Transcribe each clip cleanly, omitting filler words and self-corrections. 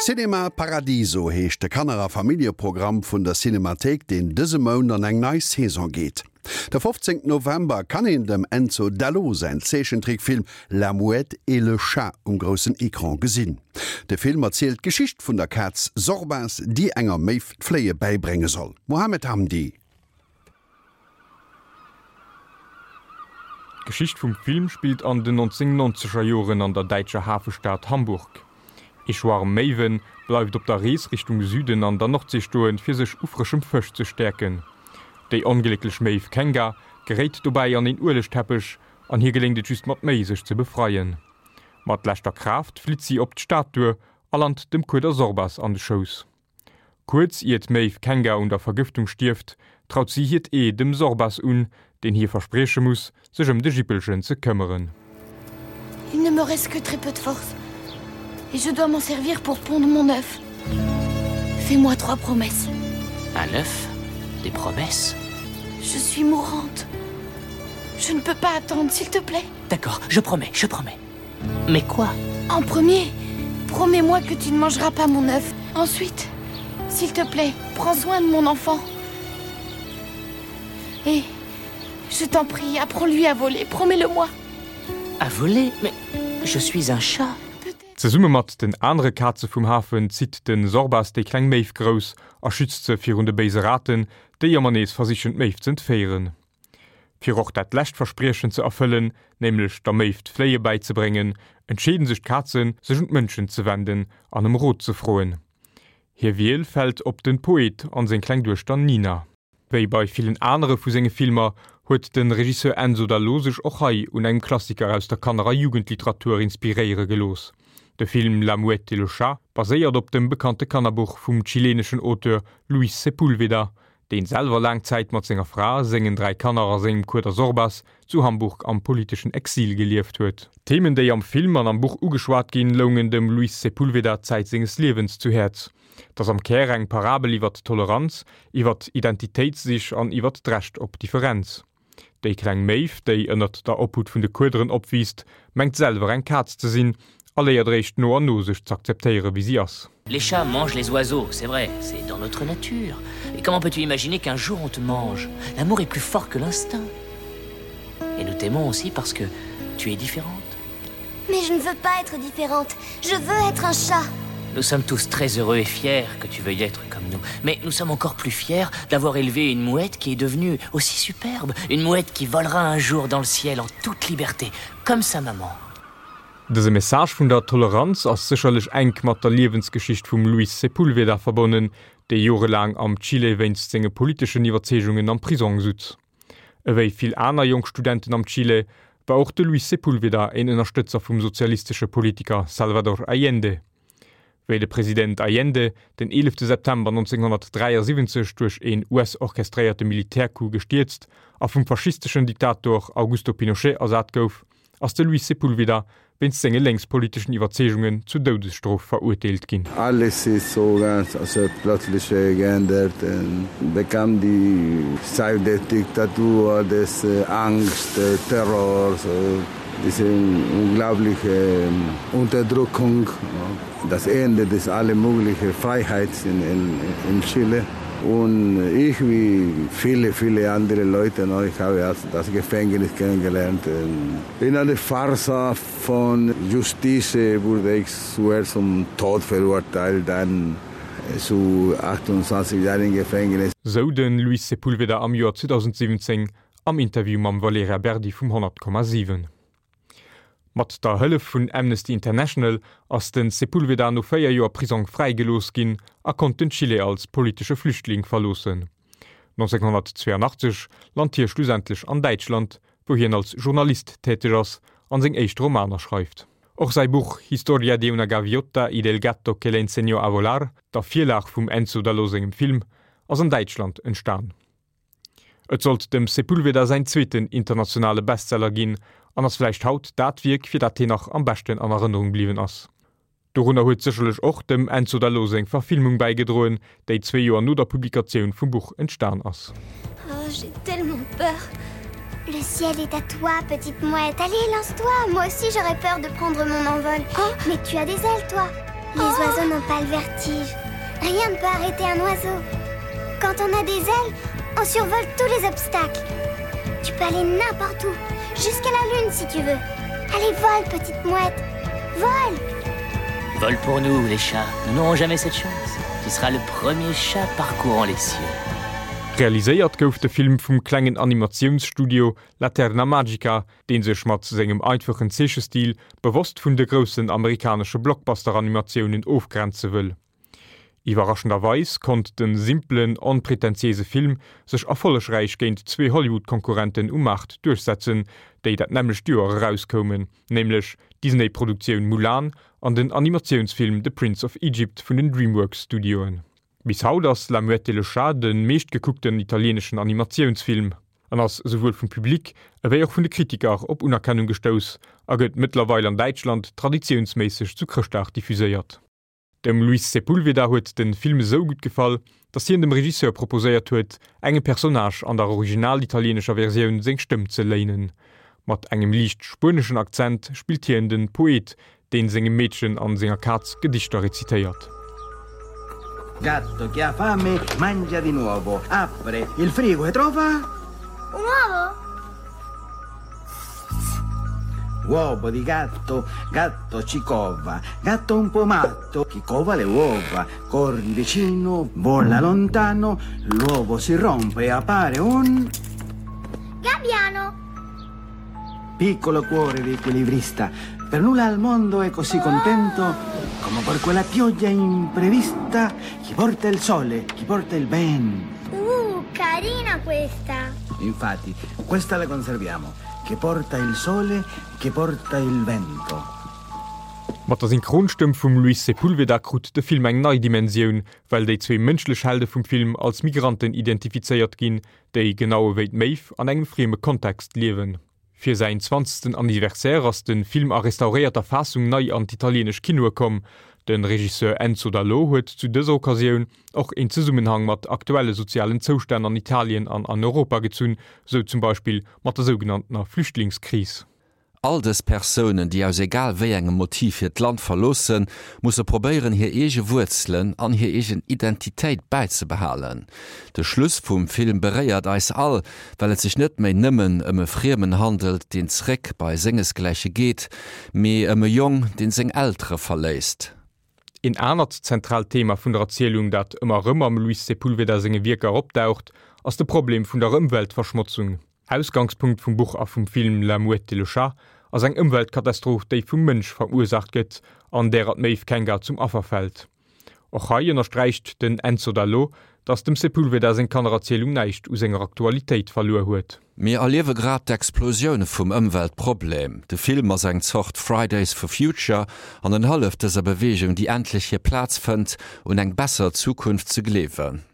Cinema Paradiso heescht de Kanner a Familljeprogramm vun der Cinemathéik, deen dëse Mount an eng nei Saison geet. De 15 November kann een dem Enzo D'Allo säin Zeechentrickfilm La Mouette et le Chat um groussen Ecran gesinn. De Film erzielt d'Geschicht vun der Kaz Sorbas, déi enger Méiw d'Fléie bäibrénge soll. Mohamed Hamdi. D'Geschicht vum Film spillt an den 1990er Joren an der däitscher Hafestad Hamburg. Ee Schwarm Méiwe bleift op der Rees Richtung Süden an der Nordsee stoen, fir sech u frëschem Fësch ze stäerken. Déi onglécklech Méiw Kenga geréit dobäi an een Uelegteppech an hir geléngt et just mat Méi, sech ze befreien. Mat leschter Kraaft flitt si op d'Stad duer a lant dem Kueder Sorbas an de Schouss. Kuerz ier d'Maeve Kenga un der Vergëftung stierft, traut si hiert Ee dem Sorbas un, deen hir versprieche muss, sech ëm de Jippelchen ze këmmeren. Il ne me reste que très peu de force et je dois m'en servir pour pondre mon œuf. Fais-moi trois promesses. Un œuf Des promesses Je suis mourante. Je ne peux pas attendre, s'il te plaît. D'accord, je promets, je promets. Mais quoi En premier, promets-moi que tu ne mangeras pas mon œuf. Ensuite, s'il te plaît, prends soin de mon enfant. Et je t'en prie, apprends-lui à voler, promets-le-moi. À voler Mais je suis un chat. Zesumme mat den anere Kaze vum Hafen zitt de Sorbas déi kleng Méiw grouss a schützt se virun de béise Raten, déi ëmmer nees versichen d'Méiw z'entféieren. Fir och dat lescht Verspriechen ze erfëllen, nämlech der Méiw d'Fléie bäizebréngen, entscheeden sech d'Kazen, sech un d'Mënschen ze wenden an ëm Rot ze froen. Hir Wiel fält op de Poet an seng kleng Duechter Nina. Wéi bei villen anere vu senge Filmer huet de Regisseur Enzo Dall'O sech och hei un engem Klassiker aus der Kanner a Jugendliteratur inspiréiere gelooss. De Film La Mouette et le Chat baséiert op dem bekannte Kannerbuch vum chileneschen Auteur Luis Sepúlveda, deen selwer laang Zäit mat senger Fra, sengen 3 Kanner a sengem Kueder Sorbas zu Hamburg am politeschen Exil gelieft huet. D'Themen, déi am Film an am Buch ugeschwat ginn, loungen dem Luis Sepúlveda Zäit senges Liewens zu Häerz. 't ass am Kär eng Parabel iwwert Toleranz, iwwert Identitéitssich an iwwert d'Recht op Differenz. Déi kleng Méiw, déi ënnert der Obhut vun de Kuederen opwiisst, mengt selwer eng Kaz ze sinn a léiert eréischt no an no sech z'akzeptéiere wéi si ass. Les chats mangent les oiseaux, c'est vrai, c'est dans notre nature. Et comment peux-tu imaginer qu'un jour on te mange L'amour est plus fort que l'instinct. Et nous t'aimons aussi parce que tu es différente. Mais je ne veux pas être différente, je veux être un chat. Nous sommes tous très heureux et fiers que tu veuilles être comme nous. Mais nous sommes encore plus fiers d'avoir élevé une mouette qui est devenue aussi superbe, une mouette qui volera un jour dans le ciel en toute liberté, comme sa maman. Dëse Message vun der Toleranz ass sécherlech enk mat der Liewensgeschicht vum Luis Sepúlveda verbonnen, dee jorelaang am Chile wéinst senge politeschen Iwwerzeegungen am Prisong sutz. Ewéi vill aner jonk Studenten am Chile war och de Luis Sepúlveda een Ënnerstëtzer vum sozialistesche Politiker Salvador Allende. Wéi de President Allende den 11 September 1973 duerch een US-orchestréierte Militärcoup gestierzt a vum faschisteschen Diktator Augusto Pinochet ersat gouf, ass de Luis Sepúlveda wéinst senge lénkspoliteschen Iwwerzeegungen zu Doudesstrof verurteelt ginn. Alles ist so ganz also plötzlich geändert bekam die Zeit der Diktatur, des Angst, Terrors, diese unglaubliche Unterdrückung, das Ende des alle mögliche Freiheit in, in, in Chile. Und ich wie viele, viele andere Leute, ich habe das Gefängnis kennengelernt. In einer Farce von Justiz wurde ich zuerst zum Tod verurteilt, dann zu 28 Jahren Gefängnis. Sou de Luis Sepúlveda am Joer 2017 am Interview mam Valerija Berdi vum 100,7. Mat der Hëllef vun Amnesty International ass de Sepúlveda no 4 Joer Prisong fräigelooss ginn a konnt den Chile als politesche Flüchtling verloossen. 1982 lant hie schlussendlech an Däitschland, wou hien als Journalist täteg ass an seng éischt Romaner schreift. Och säi Buch Historia de una gaviota y del gato que le enseñó a volar, der Virlag vum Enzo D'Allo sengem Film, ass an Däitschland entstan. Et sollt dem Sepúlveda säin zweeten internationale Bestseller ginn an ass vläicht haut dat Wierk, fir dat hien nach am beschten an Erënnerung bliwwen ass. Dorunner huet sécherlech och dem Enzo D'Allo seng Verfilmung bäigedroen, déi zwee Joer no der Publikatioun vum Buch entstan ass. Oh, j'ai tellement peur. Le ciel est à toi, petite mouette. Allez, lance-toi. Moi aussi, j'aurais peur de prendre mon envol. Oh, mais tu as des ailes, toi. Les oiseaux n'ont pas le vertige. Rien ne peut arrêter un oiseau. Quand on a des ailes, on survole tous les obstacles. Tu peux aller n'importe où, jusqu'à la lune si tu veux. Allez, vole, petite mouette. Vole Vole pour nous, les chats. Nous n'aurons jamais cette chance. Tu seras le premier chat parcourant les cieux. Realiséiert gouf de Film vum klengen Animatiounsstudio Laterna Magica, dee sech mat sengem einfachen Zeechestil bewosst vun de groussen amerikanesche Blockbuster-Animatiounen ofgrenze wëll. Iwwerraschenderweis konnt de simpelen, onpretentiéise Film sech erfollegräich géint zwee Hollywood-Konkurrenten um Maart duerchsetzen, déi dat nämmlecht Joer erauskoumen, nämlech d'Disney-Produktioun Mulan an den Animatiounsfilm The Prince of Egypt vun den DreamWorks-Studioen. Bis haut ass La Muette et le Chat de meeschtgekuckten italieeneschen Animatiounsfilm an ass esouwuel vum Public ewéi och vun de Kritiker op Unerkennung gestouss a gëtt mëttlerweil an Däitschland traditiounsméisseg zu Chrëschtdag diffuséiert. Dem Luis Sepúlveda huet de Film esou gutt gefall, datt hien dem Regisseur proposéiert huet, engem Personnage an der original-italieenescher Versioun seng Stëmm ze léinen. Mat engem liicht spueneschen Akzent spillt hien de Poet, deen sengem Meedchen an senger Kaz Gedichter rezitéiert. Gatto che ha fame mangia di nuovo, apre il frigo e trova. Un uovo? Uovo di gatto, gatto ci cova, gatto un po' matto, chi cova le uova, corri vicino, vola lontano, l'uovo si rompe e appare un. Gabbiano! Piccolo cuore di equilibrista, per nulla al mondo è così contento come per quella pioggia imprevista chi porta il sole, chi porta il vento. Uh, carina questa! Infatti, questa la conserviamo, che porta il sole, che porta il vento. Mat der Synchronstëmm vum Luis Sepúlveda krut de Film eng nei Dimensioun, well déi zwee mënschlech Helde vum Film als Migranten identifizéiert ginn, déi, genau ewéi d'Méiw, an engem frieme Kontext liewen. Fir säin zwanzegsten Anniversaire ass de Film a restauréierter Faassung nei an d'italieenesch Kinoe komm. De Regisseur Enzo Dall'O huet zu dëser Occasioun och een Zesummenhang mat aktuelle sozialen Zoustänn an Italien an an Europa gezunn, sou zum Beispill mat der sougenanntener Flüchtlingskris. All dës Persounen, déi aus egal wéi engem Motiv hiert Land verloossen, musse probéieren, hir eege Wuerzelen an hir eegen Identitéit bäizebehalen. De Schluss vum Film beréiert eis all, well et sech net méi nëmmen ëm e Friemen handelt, deen zréck bei sengesgläiche geet, mee ëm e Jong, deen seng Eltere verléisst. Een anert zentraalt Thema vun der Erzielung, dat ëmmer erëm am Luis Sepúlveda senge Wierker opdaucht, ass de Problem vun der Ëmweltverschmotzung. Ausgangspunkt vum Buch a vum Film La Mouette et le Chat ass eng Ëmweltkatastroph, déi vum Mënsch verursaacht gëtt an därer d'Méiw Kenga zum Affer fält. Och hei ënnersträicht den Enzo Dall'O, datt dem Sepúlveda seng Kannererzielung näischt u senger Aktualitéit verluer huet. Mir erliewe grad d'Explosioun vum Ëmweltproblem. De Film ass eng Zort Fridays for Future an en hëlleft dëser Beweegung, déi endlech hir Plaz fënnt, un eng besser Zukunft ze gleewen.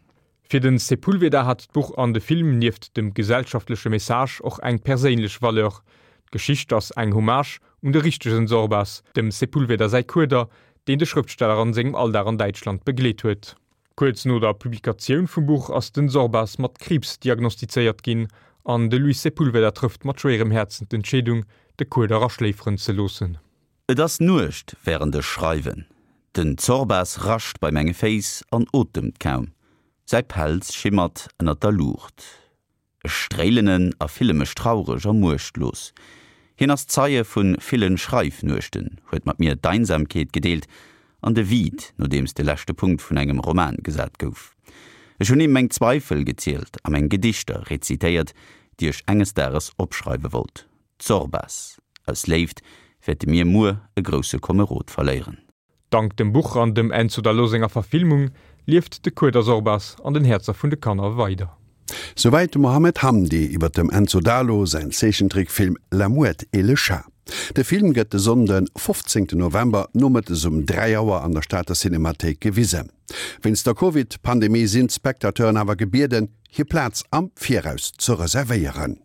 Fir de Sepúlveda hat d'Buch an de Film nieft dem gesellschaftleche Message och eng perséinlech Valeur. D'Geschicht ass eng Hommage un de richtegen Sorbas, dem Sepúlveda säi Kueder, deen de Schrëftsteller an sengem Alldag an Däitschland begleet huet. Kuerz no der Publikatioun vum Buch ass den Sorbas mat Kriibs diagnostizéiert ginn an de Luis Sepúlveda trëfft mat schwéierem Häerzen d'Entscheedung, de Kueder aschléiferen ze loossen. Et ass Nuecht wärend ech schreiwen. Den Zorbas rascht bei menge Féiss an otemt kaum. Säi Pelz schimmert ënnert der Luucht. Ech stréilen en a fille mech traureg a muechtlos. Hien ass Zeie vu ville Schreifnuechten, huet mat mir d'Einsamkeet gedeelt an de Vide, nodeems de leschte Punkt vun engem Roman gesat gouf. Ech hunn him meng Zweifel gezielt a meng Gedichter rezitéiert, déi ech enges Dages opschreiwe wollt. Zorbas, Aus Léift wäerte mir muer e grousse Komerod verléieren. Dank dem Buch an dem Enzo Dall'O senger Verfilmung lieft de Kueder Sorbas an den Häerzer vun de Kanner weider. Souwäit de Mohamed Hamdi iwwer dem Enzo Dalo säin Zeechentrickfilm La Mouette et le Chat. De Film gëtt de Sonnden, 15 November, nomëttes um 3 Auer an der Stater Cinemathéik gewisen. Wéinst der Covid-Pandemie sinn d'Spectateuren awer gebieden, hir Plaz am Viraus ze reservéieren.